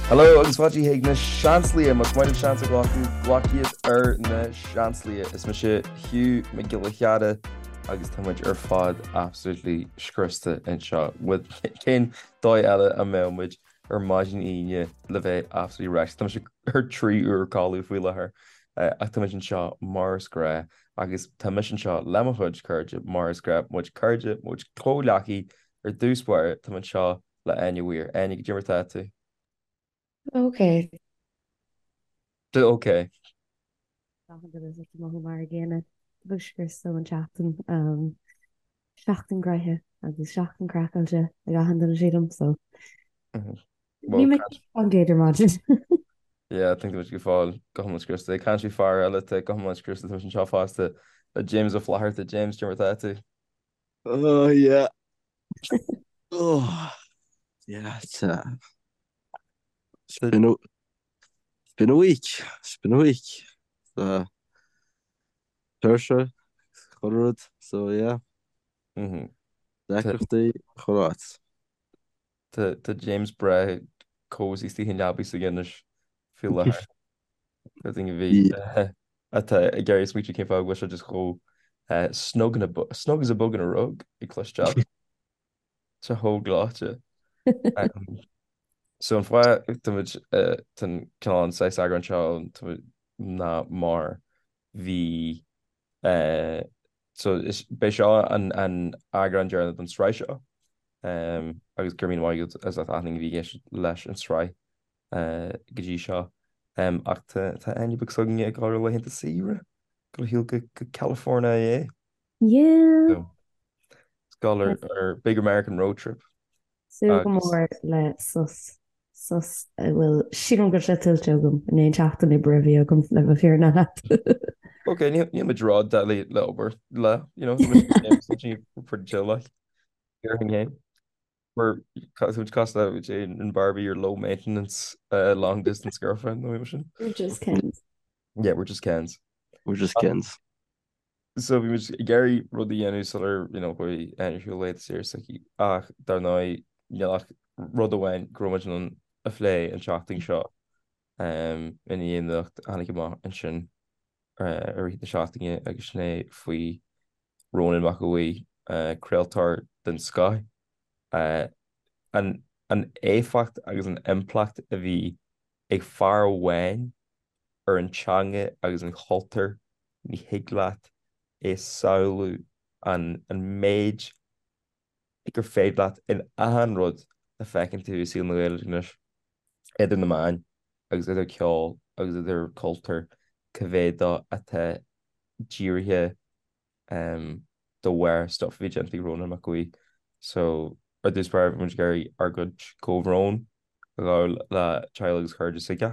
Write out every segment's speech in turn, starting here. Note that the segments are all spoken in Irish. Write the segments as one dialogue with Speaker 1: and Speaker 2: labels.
Speaker 1: Hello agus fáilte chuig na Seansálaithe, más maith libh seans a ghlacadh, glac iad ar na Seansálaithe. Is mise Hugh Mac Giolla Chearra agus tá muid ar fad absolutely scriosta anseo. Cén dóigh eile a mbeadh muid ar maidin Aoine le bheith absolutely wrecked. Tá mise ar 3 uair codladh faoi láthair ach tá muid anseo mar is gnách agus tá mise anseo le mo chuid cairde mar is gnách, muid cairde, muid comhghleacaí ar dtús báire, tá mé anseo le Áine Weir. Áine, goidé mar atá tú?
Speaker 2: Ok.
Speaker 1: Ok.
Speaker 2: Achan duine ag mothú mar an gcéanna. Tá scriosta ón tseachtain. Seachtain gnoitheach agus seachtain craiceáilte ag achan duine sílim so. Ní mé an gcéad ar maidin.
Speaker 1: Yeah, I think muid go fóill go hiomlán scriosta. Ag caint faoi fear eile atá go hiomlán scriosta tá muid anseo fosta le James Ó Flatharta. James, goidé mar atá tú?
Speaker 3: Oh yeah. Oh yeah, it's uh, it's been a it's been a week. It's been a week. Uh, tuirse, chuile rud, so yeah.
Speaker 1: Mhm.
Speaker 3: Deacrachtaí chuile áit.
Speaker 1: Tá tá James breá cozy istigh i leabaidh s'aige anois faoi láthair. Do dhaoine a bhí atá ag iarraidh smaoitiú cén fáth go bhfuil sé just chomh snug in a snug as a bug in a rug ag cloisteáil. Tá chomh gleoite. So an fáth táimid tá an cineál an saghas eagrán seo ná mar bhí so is beidh seo an an eagrán deireanach don sraith seo agus go raibh míle maith agat as ucht achan duine a bhí ag éisteacht leis an sraith go dtí seo. Ach tá tá Áine beag s'againne ag dul ar laethanta saoire go shiúl go go California é.
Speaker 2: Yeah.
Speaker 1: So ag dul ar ar Big American Road Trip.
Speaker 2: Súil go mór le sos sos a bhfuil sílim go bhfuil sé tuillte agam i ndiaidh an tseachtain oibre a bhí agam le bheith fírinneach leat.
Speaker 1: Ok, níl níl muid ró-deadly le obair le, you know, tá muid pretty chill like. Déarfainn féin. We're muid cosúil le Jane and Barbie your low maintenance uh, long distance girlfriend nó sin.
Speaker 2: We're just Kens.
Speaker 1: Yeah, we're just Kens.
Speaker 3: We're just Kens.
Speaker 1: So bhí muid ag iarraidh rud a dhéanamh sular you know, chuaigh Áine ar shiúl laethanta saoire s'aici ach dar ndóigh níl ach rud amháin go raibh muid in ann a phlé an tseachtain seo um, i ndiaidh an nuacht a tháinig amach ansin uh, i rith na seachtaine agus sin é faoi Rónán Mac Aodha Bhuí, uh, craoltóir den scoth, uh, an, an éifeacht agus an impleacht a bhí ag fear amháin ar an teanga agus an chultúr, ní thig leat é a shamhlú an an méid gur féidir leat in achan rud a feiceann tú i saol na Gaeilge anois, idir na meáin agus idir ceol agus idir cultúr, cá mhéad dó atá dírithe de bharr stuff a bhí déanta ag Rónán Mac Aodha Bhuí. So, ar dtús báire, bhí muid ag iarraidh ár gcuid comhbhrón a ghabháil le teaghlaigh agus cairde s'aige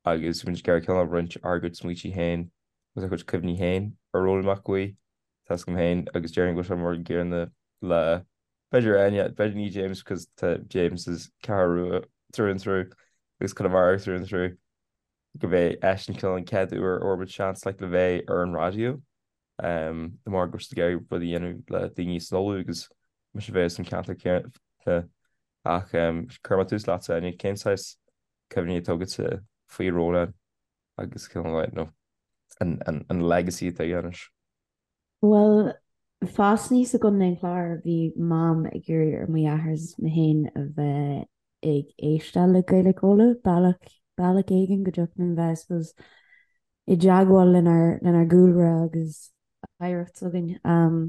Speaker 1: agus bhí muid ag iarraidh cineál roinnt ár gcuid smaointe féin agus ár gcuid cuimhní féin ar Rónán Mac Aodha Bhuí. Tá 'fhios agam féin agus déarfainn go bhfuil sé mar an gcéanna le b'fhéidir Áine, b'fhéidir ní James because tá James is Ceathrú Rua through and through agus Conamara through and through. go mb'é eisean cineál an chéad uair a fuair muid seans like le bheith ar an raidió de mar go raibh siad ag iarraidh rud a dhéanamh le daoine san Uladh agus mise a bheith as an ceantar céanna ach cuirfidh mé tús leatsa Áine, cén saghas cuimhní atá agatsa faoi Rónán agus cineál like, you know, an, an, an legacy atá aige anois?
Speaker 2: Bhuel, fás aníos i gContae an Chláir, bhí Mam ag iarraidh ar mo dheartháir is mé féin a bheith ag éisteacht le Gaeilge Uladh, bealach, bealach éigin go dtiocfadh linn bheith, I suppose, i dteagmháil lenár, lenár gcúlra agus oidhreacht s'againn. Um,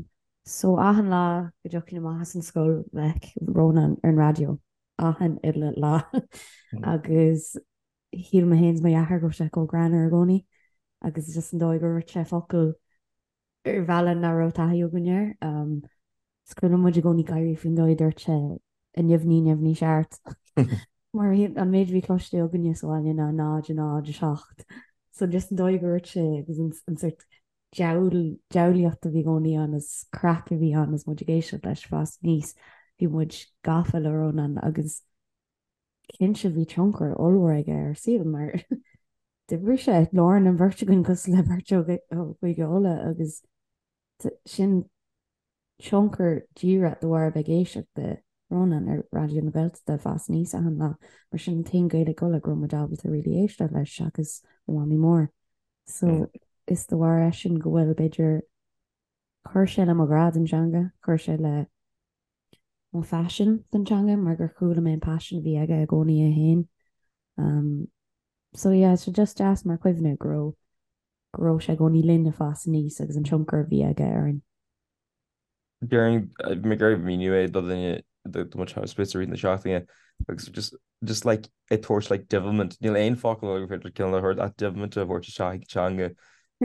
Speaker 2: so achan lá go dtiocfainn amach as an scoil bheadh Rónán ar an raidió, achan uile lá. Agus shíl mé féin is mo dheartháir go raibh sé chomh greannmhar i gcónaí agus just an dóigh gur dhúirt sé focal ar bhealach nach raibh taithí againn air. Is cuimhin liom muid i gcónaí gáirí faoin dóigh a dúirt sé neamhní neamhní seart mar an méid a bhí cloiste againne sa bhaile ná 0 0 7. So just an dóigh gur dhúirt sé agus an sort diabhlaíocht a bhí i gcónaí ann is craic a bhí ann is muid ag éisteacht leis fás aníos bhí muid gafa le Rónán agus Cinnte bhí tionchar ollmhór aige ar ár saol mar d'oibrigh sé i lár an bheirt againn cosúil le beirt ó Chúige Uladh agus sin tionchar díreach de bharr a bheith ag éisteacht le. Rónán ar Raidió na Gaeltachta ag fás aníos achan lá, mar sin an t-aon Gaeilge Uladh go raibh muid ábalta really éisteacht leis seachas mo mhamaí mór. So is de bharr eisean go bhfuil, b'fhéidir, chuir sé le mo ghrá don teanga, chuir sé le mo phaisean don teanga mar gur chuala mé an paisean a bhí aige i gcónaí é féin. Um, so yeah, so just deas mar chuimhne go raibh go raibh sé i gcónaí linn ag fás aníos agus an tionchar a bhí aige orainn.
Speaker 1: Déarfainn, bhí mé ag iarraidh míniú é do dhuine do mo spéis i rith na seachtaine agus just just like ag tabhairt like devilment, níl aon focal eile gur féidir cineál a thabhairt ach devilment a thabhairt isteach ag teanga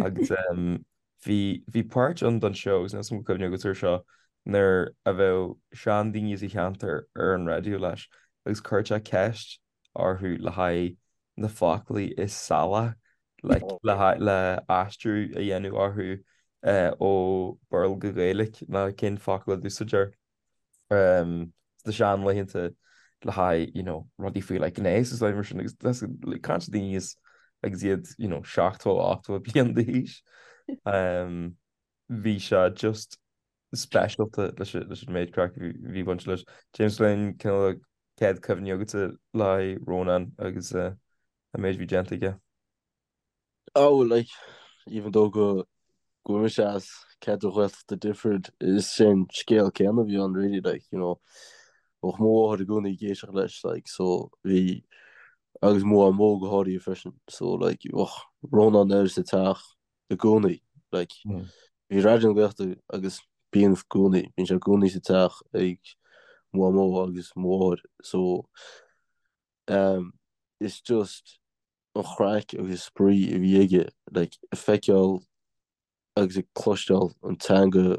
Speaker 1: agus um, bhí bhí páirt ann don seó agus níl 's agam cuimhne agat air seo nuair a bheadh seandaoine sa cheantar ar an raidió leis agus chuirtear ceist orthu le haghaidh na foclaí is salaí like le haghaidh le aistriú a dhéanamh orthu ó Béarla go Gaeilge ná cén focal a d'úsáidtear sna seanlaethanta le haghaidh you know rudaí faoi like gnéas is mar sin agus that's like caint daoine is agus iad you know 70 80 bliain d'aois. Bhí sé just speisialta leis an méid craic a bhí bainte leis. James bhfuil aon cineál céad cuimhní agatsa le haghaidh Rónán agus an méid a bhí déanta aige?
Speaker 3: Oh, like, even though go go bhfuil mise as ceantar Ghaeltachta different, is sin scéal céanna a bhí ann really, like, you know, bheadh mo mháthair i gcónaí ag éisteacht leis, like, so bhí, agus mo mhamó go háirithe freisin, so like, bheadh Rónán air sa teach i gcónaí, like, bhí Raidió na Gaeltachta agus bíonn i gcónaí, bíonn sé i gcónaí sa teach ag mo mhamó agus mo mháthair, so um, it's just an chraic agus spraoi a bhí aige, like, ag feiceáil agus ag cloisteáil an teanga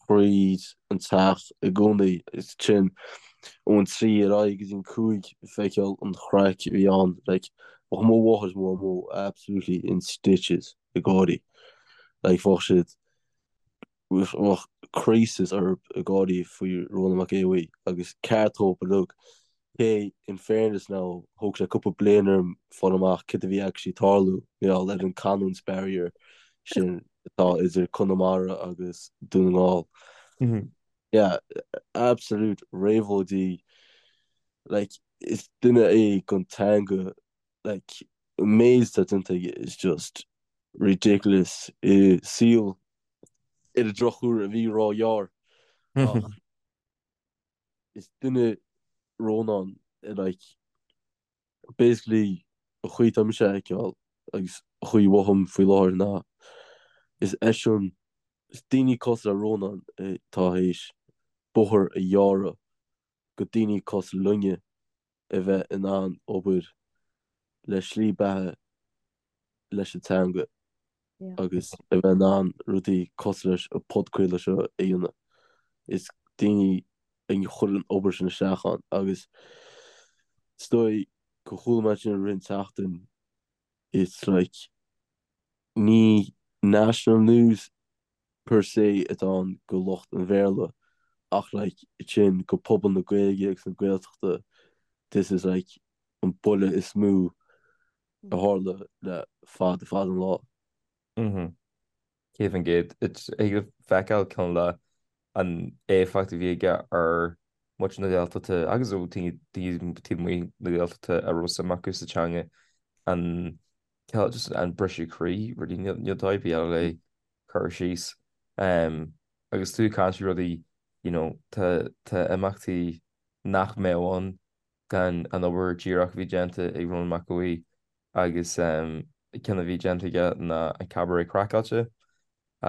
Speaker 3: thríd an teach i gcónaí, is sin ón 3 ar aghaidh go dtí an 5 ag feiceáil an chraic a bhí ann, like, bheadh mo mháthair is mo mhamó absolutely in stitches ag gáirí, like, bheadh siad, bheadh crisis orthu ag gáirí faoi Rónán Mac Aodha Bhuí agus ceart dóibh uilig. Cé, in fairness now, thóg sé cúpla bliain orm fáil amach cad a bhí actually ag tarlú, mar gheall ar an canúint barrier sin atá idir Conamara agus Dún na nGall. Yeah, absolute réabhlóidí. Like, is duine é don teanga, like, an méid atá déanta aige is just ridiculous i saol ar an drochuair a bhí róghearr ach is duine Rónán like basically an chaoi atá mise a fheiceáil agus an chaoi a mhothaím faoi láthair ná is eisean is daoine cosúil le Rónán atá théis bóthar a ghearradh go daoine cosúil linne a bheith in ann obair le slí beatha leis an teanga agus a bheith in ann rudaí cosúil leis an podchraoladh seo a dhéanamh. Is daoine a chuir an obair sin isteach ann agus is dóigh go chuala mé sin i rith an tseachtain it's like ní national news per se atá ann go lucht an Bhéarla ach like sin go pobal na Gaeilge agus na Gaeltachta this is like an buille is mó a tharla le fada fada an lá.
Speaker 1: 100%. Thig leat feiceáil cineál de an éifeacht a bhí aige ar muintir na Gaeltachta agus ó daoine taobh amuigh na Gaeltachta a raibh suim acu sa teanga an cineál just an briseadh croí really níl níl dóigh ar bith eile le cur síos. Agus tú ag caint faoi rudaí you know tá tá imeachtaí nach mbeadh ann gan an obair díreach a bhí déanta ag Rónán Mac Aodha Bhuí agus ceann a bhí déanta aige ná an Cabaret Craiceáilte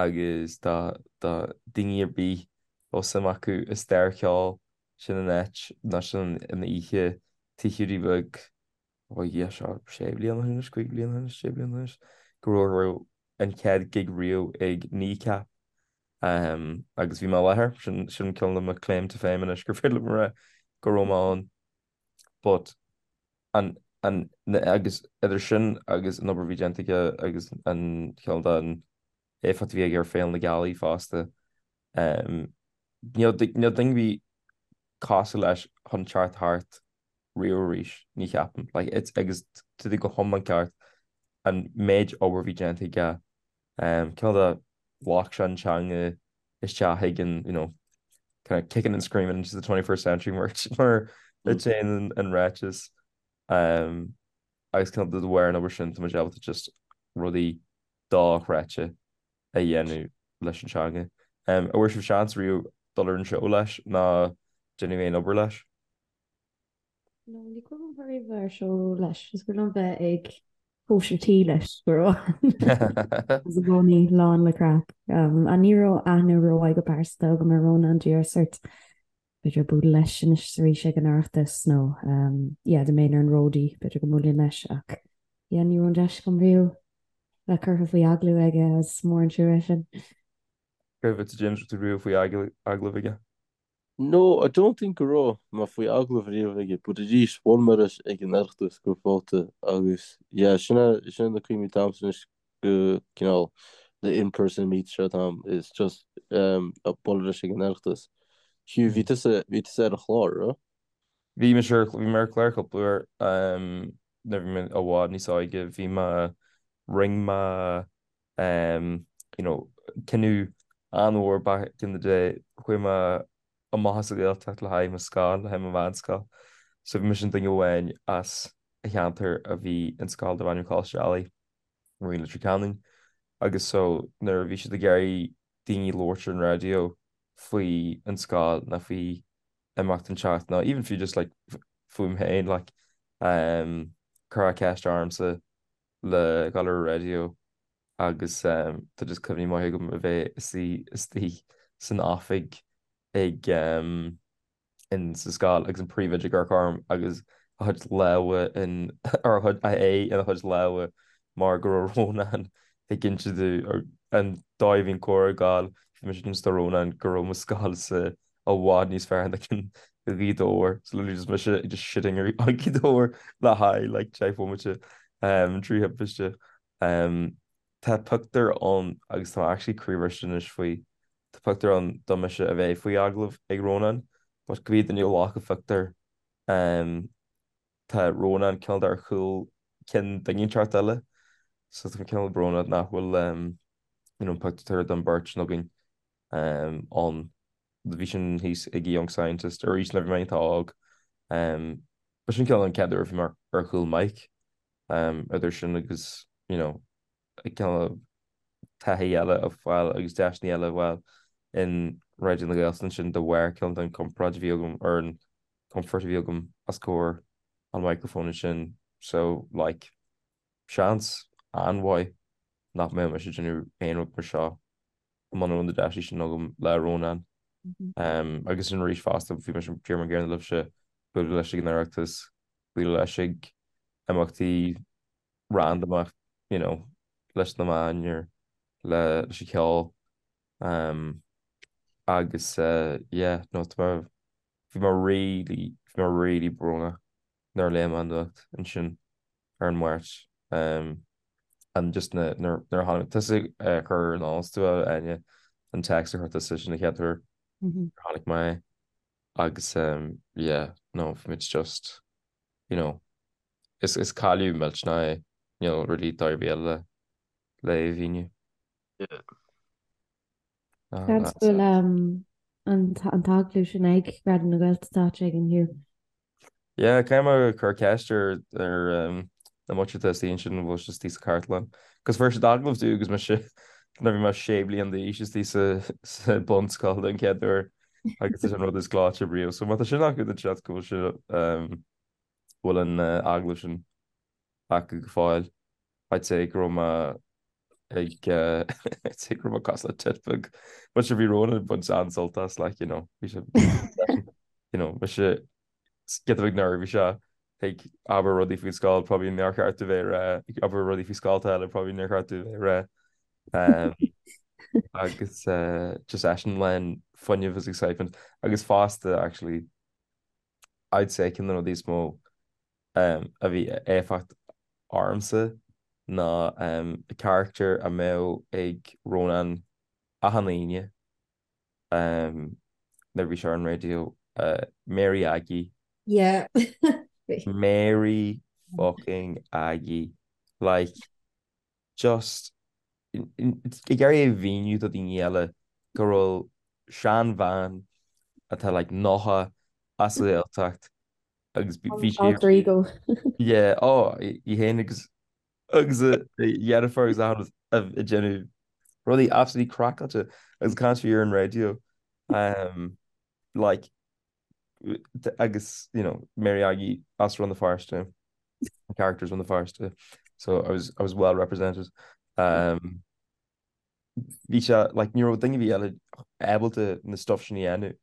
Speaker 1: agus do do daoine ar bith a bhfuil suim acu i stair cheoil sin an áit nó sin an oíche Tigh Hiúdaí Beag ó yeah seo sé bliana ó shin anois, 5 bliana ó shin anois, sé bliana ó shin anois go raibh an chéad gig riamh ag Kneecap Agus bhí mé i láthair, sin sin cineál de mo claim to fame anois gur féidir liom a rá go raibh mé ann. But an an agus idir sin agus an obair a bhí déanta aige agus an cineál den éifeacht a bhí aige ar Féile na Gealaí fosta, níl níl duine ar bith cosúil leis chun teacht thart riamh arís, ní cheapaim. Like it's agus tá tú go hiomlán ceart an méid obair a bhí déanta aige Cineál de ghlac sé an teanga isteach chuig an, you know, Kind of kicking and screaming into the 21st century mar mar a dhéanann an ráiteas. Um, agus cineál de bharr an obair sin tá muid ábalta just rudaí dochreidte a dhéanamh leis an teanga. Um, an bhfuair sibh seans riamh dul ar an seó leis ná déanamh aon obair leis?
Speaker 2: No, ní cuimhin liom riamh bheith ar seó leis. Is cuimhin liom bheith ag cóisir tí leis go raibh agus i gcónaí lán le craic. Um, a ní raibh aithne rómhaith go pearsanta agam ar Rónán díreach sort b'fhéidir bualadh leis anois is arís ag an Oireachtas nó um, yeah, dá mbeinn ar an ródaí b'fhéidir go mbuailfinn leis ach yeah, ní raibh an deis agam riamh bheith curtha faoi agallamh aige is mór an trua é sin.
Speaker 1: Céard fútsa James raibh tú riamh faoi agallamh aige?
Speaker 3: No, I don't think go raibh mé faoi agallamh riamh aige, but arís, bhuail mé leis ag an Oireachtas cúpla babhta agus yeah, sin é, sin é na cuimhní atá a'msa anois go cineál the in-person meets seo atá a'm, is just um, bualadh leis ag an Oireachtas. Hugh, bhí tusa, bhí tusa ar an chlár, raibh?
Speaker 1: Bhí mise ar, bhí mé ar chlár cúpla uair, um, nuair a bhí mé i bhfad níos óige, bhí mé, rinne mé um, you know, cinneadh an-mhór back in the day, chuaigh mé amach as an Ghaeltacht le haghaidh mo scoil, le haghaidh mo mheánscoil. So bhí mise an duine amháin as an cheantar a bhí in scoil darb ainm Coláiste Ailigh, i Leitir Ceanainn. Agus so nuair a bhí siad ag iarraidh daoine labhairt ar an raidió faoi an scoil nó faoi imeacht inteacht nó even fiú just like fúm féin like um, cuireadh ceist ormsa le dhul ar an raidió agus tá just cuimhní maithe agam a bheith istigh san oifig ag in sa scoil agus an príomhoide ag amharc orm agus a chuid lámha in or a chuid a aghaidh ina chuid lámha mar go raibh Rónán ag inse domh an dóigh a bhí an comhrá ag gabháil bhí mise ag inse do Rónán go raibh mo scoilsa i bhfad níos fearr ná cinn Ghaoth Dobhair. So literally just mise just shitting ar Ghaoth Dobhair le haghaidh like 10 bhomaite um, trí thimpiste. Um, tá pictiúr ann agus tá actually croíbhriste anois faoi. Tá pictiúr ann de mise a bheith faoi agallamh ag Rónán, but cibé duine a ghlac an phictiúr um, tá Rónán cineál ar chúl ceann duine inteacht eile. So tá mé cineál brónach nach bhfuil um, you know, pictiúr den bheirt againn um, ann. Bhí sin thíos ag Young Scientist arís nuair a bhí mé iontach óg. Ba sin cineál an chéad uair a bhí mé ar chúl mic. Idir sin agus you know cineál taithí eile a fháil agus deiseanna eile a fháil in Raidió na Gaeltachta ansin de bharr cineál den compord a bhí agam ar an comfort a bhí agam os comhair an microphone ansin. So like seans an-mhaith nach mbeadh mise ag déanamh aon rud mar seo muna raibh na deiseanna sin agam le Rónán. Agus sin arís fosta, bhí mise díreach mar an gcéanna libhse, bualadh leis ag an Oireachtas, bualadh leis ag imeachtaí randamach, you know, leis na meáin or le leis an cheol. Agus yeah, no, tá mé, bhí mé really, bhí mé really brónach nuair a léigh mé an nuacht ansin ar an Máirt. And just na, nuair a tháinig tusa a chur in eolas tú Áine, an text a chuir tusa sin an chéad uair a chonaic mé é. Agus yeah, no, bhí muid just, you know, is, is cailleadh millteanach é, níl really dóigh ar bith eile le é a mhíniú.
Speaker 3: Yeah.
Speaker 2: Seans go bhfuil an t-agallamh sin ag Raidió na Gaeltachta áit éigin, Hugh.
Speaker 1: Yeah, caithfidh mé cur ceist ar ar na muintir atá istigh ansin an bhfuil sé istigh sa chartlann. Cos fuair siad agallamh domh agus mise nuair a bhí mé sé bliana d'aois istigh sa sa bunscoil den chéad uair agus is an rud is gleoite riamh. So má tá sin acu then seans go bhfuil sé bhfuil an agallamh sin acu go fóill. I'd say go raibh mé ag I'd say go raibh mé cosúil le tit beag. But sure bhí Rónán ag baint an-sult as like you know bhí sé you know mise giota beag neirbhíseach ag abair rudaí faoin scoil probably nár cheart domh bheith ag rá ag abair rudaí faoi scolta eile probably nár cheart domh bheith ag rá. Um, agus uh, just eisean lán fuinnimh is excitement agus fosta actually I'd say ceann de na rudaí is mó a bhí éifeacht ormsa ná carachtar a mbeadh ag Rónán achan Aoine nuair a bhí sé ar an raidió, Mary Aggie.
Speaker 2: Yeah.
Speaker 1: Mary fucking Aggie. Like, just ag iarraidh a mhíniú do dhaoine eile go raibh seanbhean atá like 90 as an Ghaeltacht agus bhí sé
Speaker 2: Alter ego.
Speaker 1: Yeah, oh, í féin agus agus a dheirfiúr agus achan rud ag déanamh rudaí absolutely craiceáilte agus caint faoi ar an raidió. Um, like, agus, you know, Mary Aggie as Rann na Feirste, characters Rann na Feirste, so I was, I was well represented. Um, bhí sé, like, ní raibh duine ar bith eile ábalta na stuff sin a dhéanamh.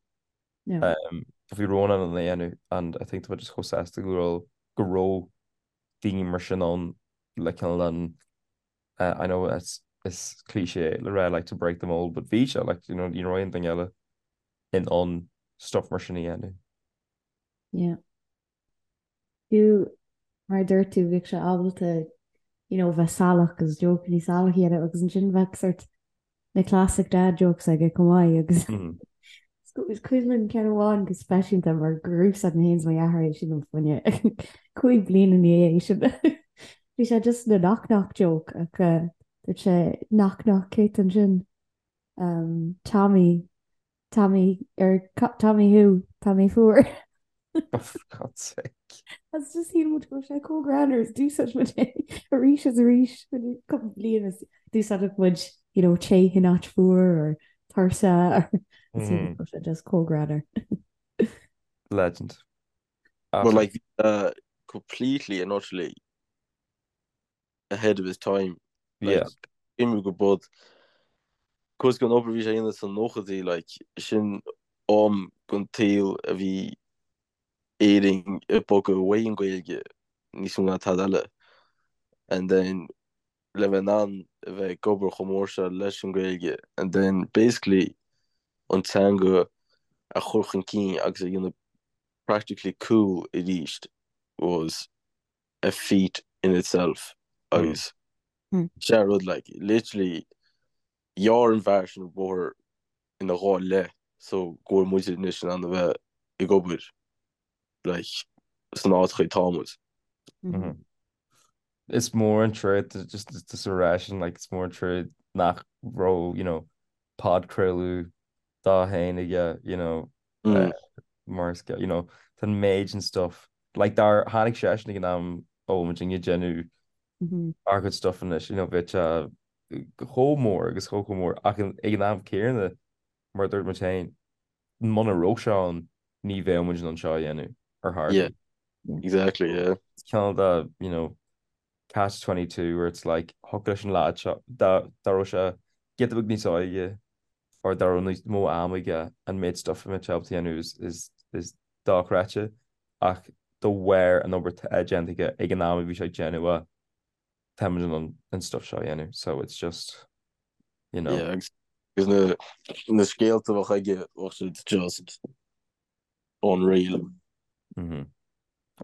Speaker 2: No.
Speaker 1: Um, bhí Rónán in ann é a dhéanamh and I think tá just chomh sásta go raibh go raibh daoine mar sin ann le cineál an uh, I know it's is cliché le rá like to break the mold but bhí sé like you know ní raibh aon duine eile in ann stuff mar sin a dhéanamh.
Speaker 2: Yeah. Fiú mar a dúirt tú bhíodh sé ábalta you know bheith salach agus jokeanna salach a dhéanamh agus ansin bheadh sort na classic dad jokes aige chomh maith agus is cuimhin liom ceann amháin go speisialta mar gur úsáid mé féin is mo dheartháir é sin um fá choinne cúig bliana ina dhiaidh sin. Bhí sé just na knock knock joke ach dúirt sé knock knock cé ansin um, Tommy Tommy ar Tommy who Tommy fuar.
Speaker 1: Oh, for God's sake.
Speaker 2: Agus just shíl muid go raibh sé chomh greannmhar is d'úsáid muid é arís is arís cúpla bliain is d'úsáideadh muid you know, te in áit fuar or tuirse or mm. sé just chomh greannmhar.
Speaker 1: Legend.
Speaker 3: But like uh, completely and utterly ahead of his time.
Speaker 1: Yeah.
Speaker 3: Like, go bud cos gon obair bhí sé a dhéanamh sna nóchaidí like sin am gon tsaol a bhí Éirinn ag bogadh uaidh an Ghaeilge níos mó ná tada eile and then le bheith in ann a bheith ag obair chomh mór seo leis an Ghaeilge and then basically an teanga a chur chun cinn agus a dhéanamh practically cool arís was a feat in itself agus sé rud like literally ghearr an fear sin an bóthar ina dhá leith so go bhfuil muid anois in ann a bheith ag obair like san áit chaoi tá muid.
Speaker 1: Is mór an trua just just a rá sin like is mór an trua nach raibh you know podchraoladh dá fhéin aige you know mar is you know tá an méid sin stuff like dár tháinig seisean ag an am a bhfuil muid ag déanamh ár gcuid stuff anois you know bheadh sé chomh mór agus chomh chomh mór ach ag an am céanna mar a dúirt muid féin muna raibh sé ann ní bheadh muid in ann seo a dhéanamh ar chor ar
Speaker 3: bith. Exactly, yeah.
Speaker 1: Cineál de you know catch 22 where it's like thiocfadh leis an leaid seo dá dá raibh sé giota beag níos óige or dá raibh níos mó ama aige an méid stuff a mbeadh sé ábalta a dhéanamh is is is dochreidte ach de bharr an obair atá déanta aige ag an am a bhí sé ag déanamh é tá muid in ann an stuff seo a dhéanamh so it's just you know.
Speaker 3: Yeah agus na na scéalta a bheadh aige bheadh siad just unreal.
Speaker 1: Mhm.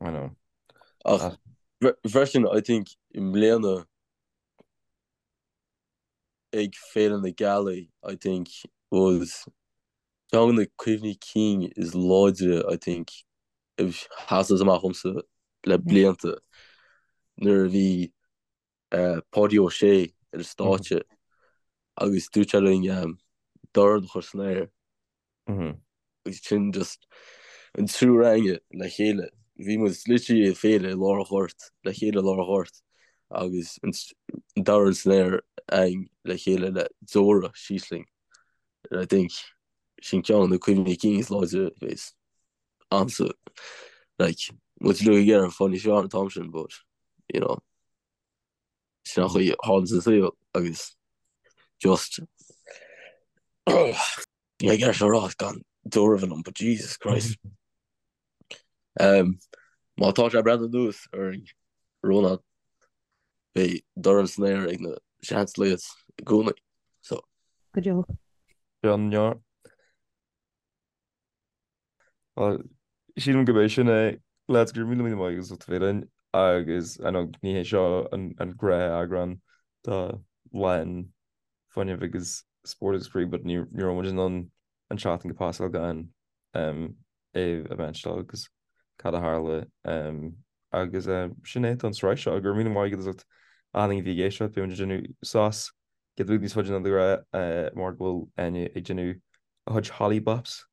Speaker 1: I know.
Speaker 3: Ach freisin I think i mbliana ag Féile na Gealaí I think was ceann de na cuimhní cinn is láidre I think a sheasas amach dhomsa le blianta nuair a bhí Páidí Ó Sé ar an stáitse agus dúirt sé linn dorn a chur san aer. Agus sin just an triúr againne le chéile. Bhí muid literally ag féile i lár an ghoirt, le chéile i lár an ghoirt agus an dorn san aer againn le chéile le deora síos linn. I think sin ceann de na cuimhní cinn is láidre a bheas a'msa. Like, muid uilig ag iarraidh fáil níos fearr an t-am sin but, you know, sin an chaoi a tharlaíonn sa saol agus just Bhí mé ag iarraidh seo a rá gan deora a bheith liom but Jesus Christ. Um, má tá sé ag breathnú anuas orainn, Rónán, beidh dorn san aer ag na Seanslads i gcónaí. So.
Speaker 2: Go deo.
Speaker 1: Bionn. Bhuel, sílim gurb é sin é. Lads, go raibh míle míle maith agat as ucht a bheith linn agus I know ní hé seo an gnáth-eagrán de Lán Fuinnimh agus Spórt agus Spraoi but ní raibh muid in ann an tseachtain go pasáil gan é a mhentionáil agus cad a tharla agus sin é don sraith seo. Go raibh míle maith agat as ucht achan duine a bhí ag éisteacht. Beidh muid ag déanamh sos giota beag níos faide ná de ghnáth mar go bhfuil Áine ag déanamh a chuid holly bops.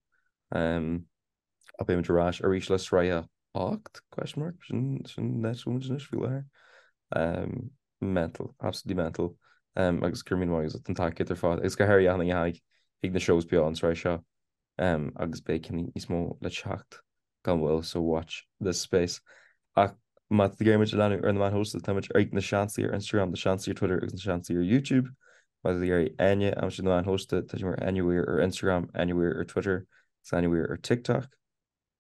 Speaker 1: Ach beidh muid ar ais arís le sraith a 8? Question mark? Sin sin an áit a bhfuil muid anois faoi láthair. Mental, absolutely mental. Agus go raibh míle maith agat as ucht an tacaíocht ar fad agus go háirithe achan duine a tháinig chuig na shows beo an tsraith seo. Agus beidh cinn níos mó le teacht gan mhoill so watch this space. Ach má tá tú ag iarraidh muid a leanúint ar na meáin shóisialta tá muid ag Na Seansálaithe ar Instagram, Na Seansálaithe ar Twitter agus Na Seansálaithe ar YouTube. Má tá tú ag iarraidh Áine a aimsiú ar na meáin shóisialta tá sí mar Áine Weir ar Instagram, Áine Weir ar Twitter agus Áine Weir ar TikTok.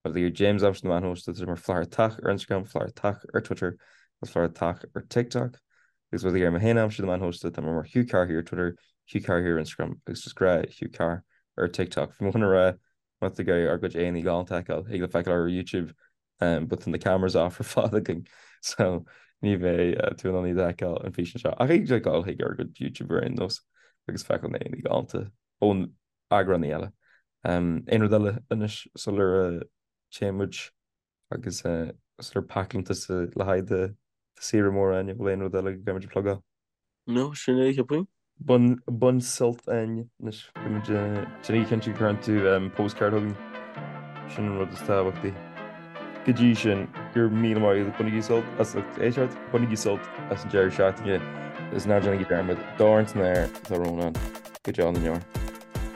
Speaker 1: Má tá tú ag iarraidh James a aimsiú ar na meáin shóisialta tá sé mar Flathartach ar Instagram, Flathartach ar Twitter agus Flathartach ar TikTok. Agus má tá tú ag iarraidh mé féin a aimsiú ar na meáin shóisialta tá mé mar Hugh Carr here ar Twitter, Hugh Carr here ar Instagram agus just gnáth Hugh Carr ar TikTok. Bhí mé chun a rá Má tá tú ag iarraidh ár gcuid aghaidheanna galánta a fheiceáil, thig leat feiceáil ar YouTube but tá na cameras off ar fad againn so ní bheidh tú in ann iad a fheiceáil an físeán seo. Ach thig leat dul chuig ár gcuid YouTube ar aon nós agus feiceáil na aghaidheanna galánta ón eagránaí eile. Aon rud eile anois sular téann muid agus sular pacálann tusa le haghaidh do saoire mór Áine, bhfuil aon rud eile go gcaithfimid a phlugáil?
Speaker 3: No, sin é, cheapfainn.
Speaker 1: Bain, bain sult Áine, anois beimid, déan cinnte go gcuireann tú postcard chugainn, sin an rud is tábhachtaí. Go dtí sin, go raibh míle maith agat, bainigí sult as lucht éisteachta, bainigí sult as an deireadh seachtaine agus ná déanaigí dearmad, dorn san aer atá Rónán, go deo na ndeor.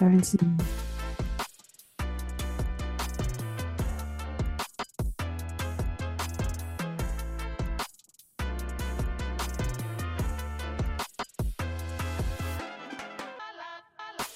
Speaker 2: Dorn san aer.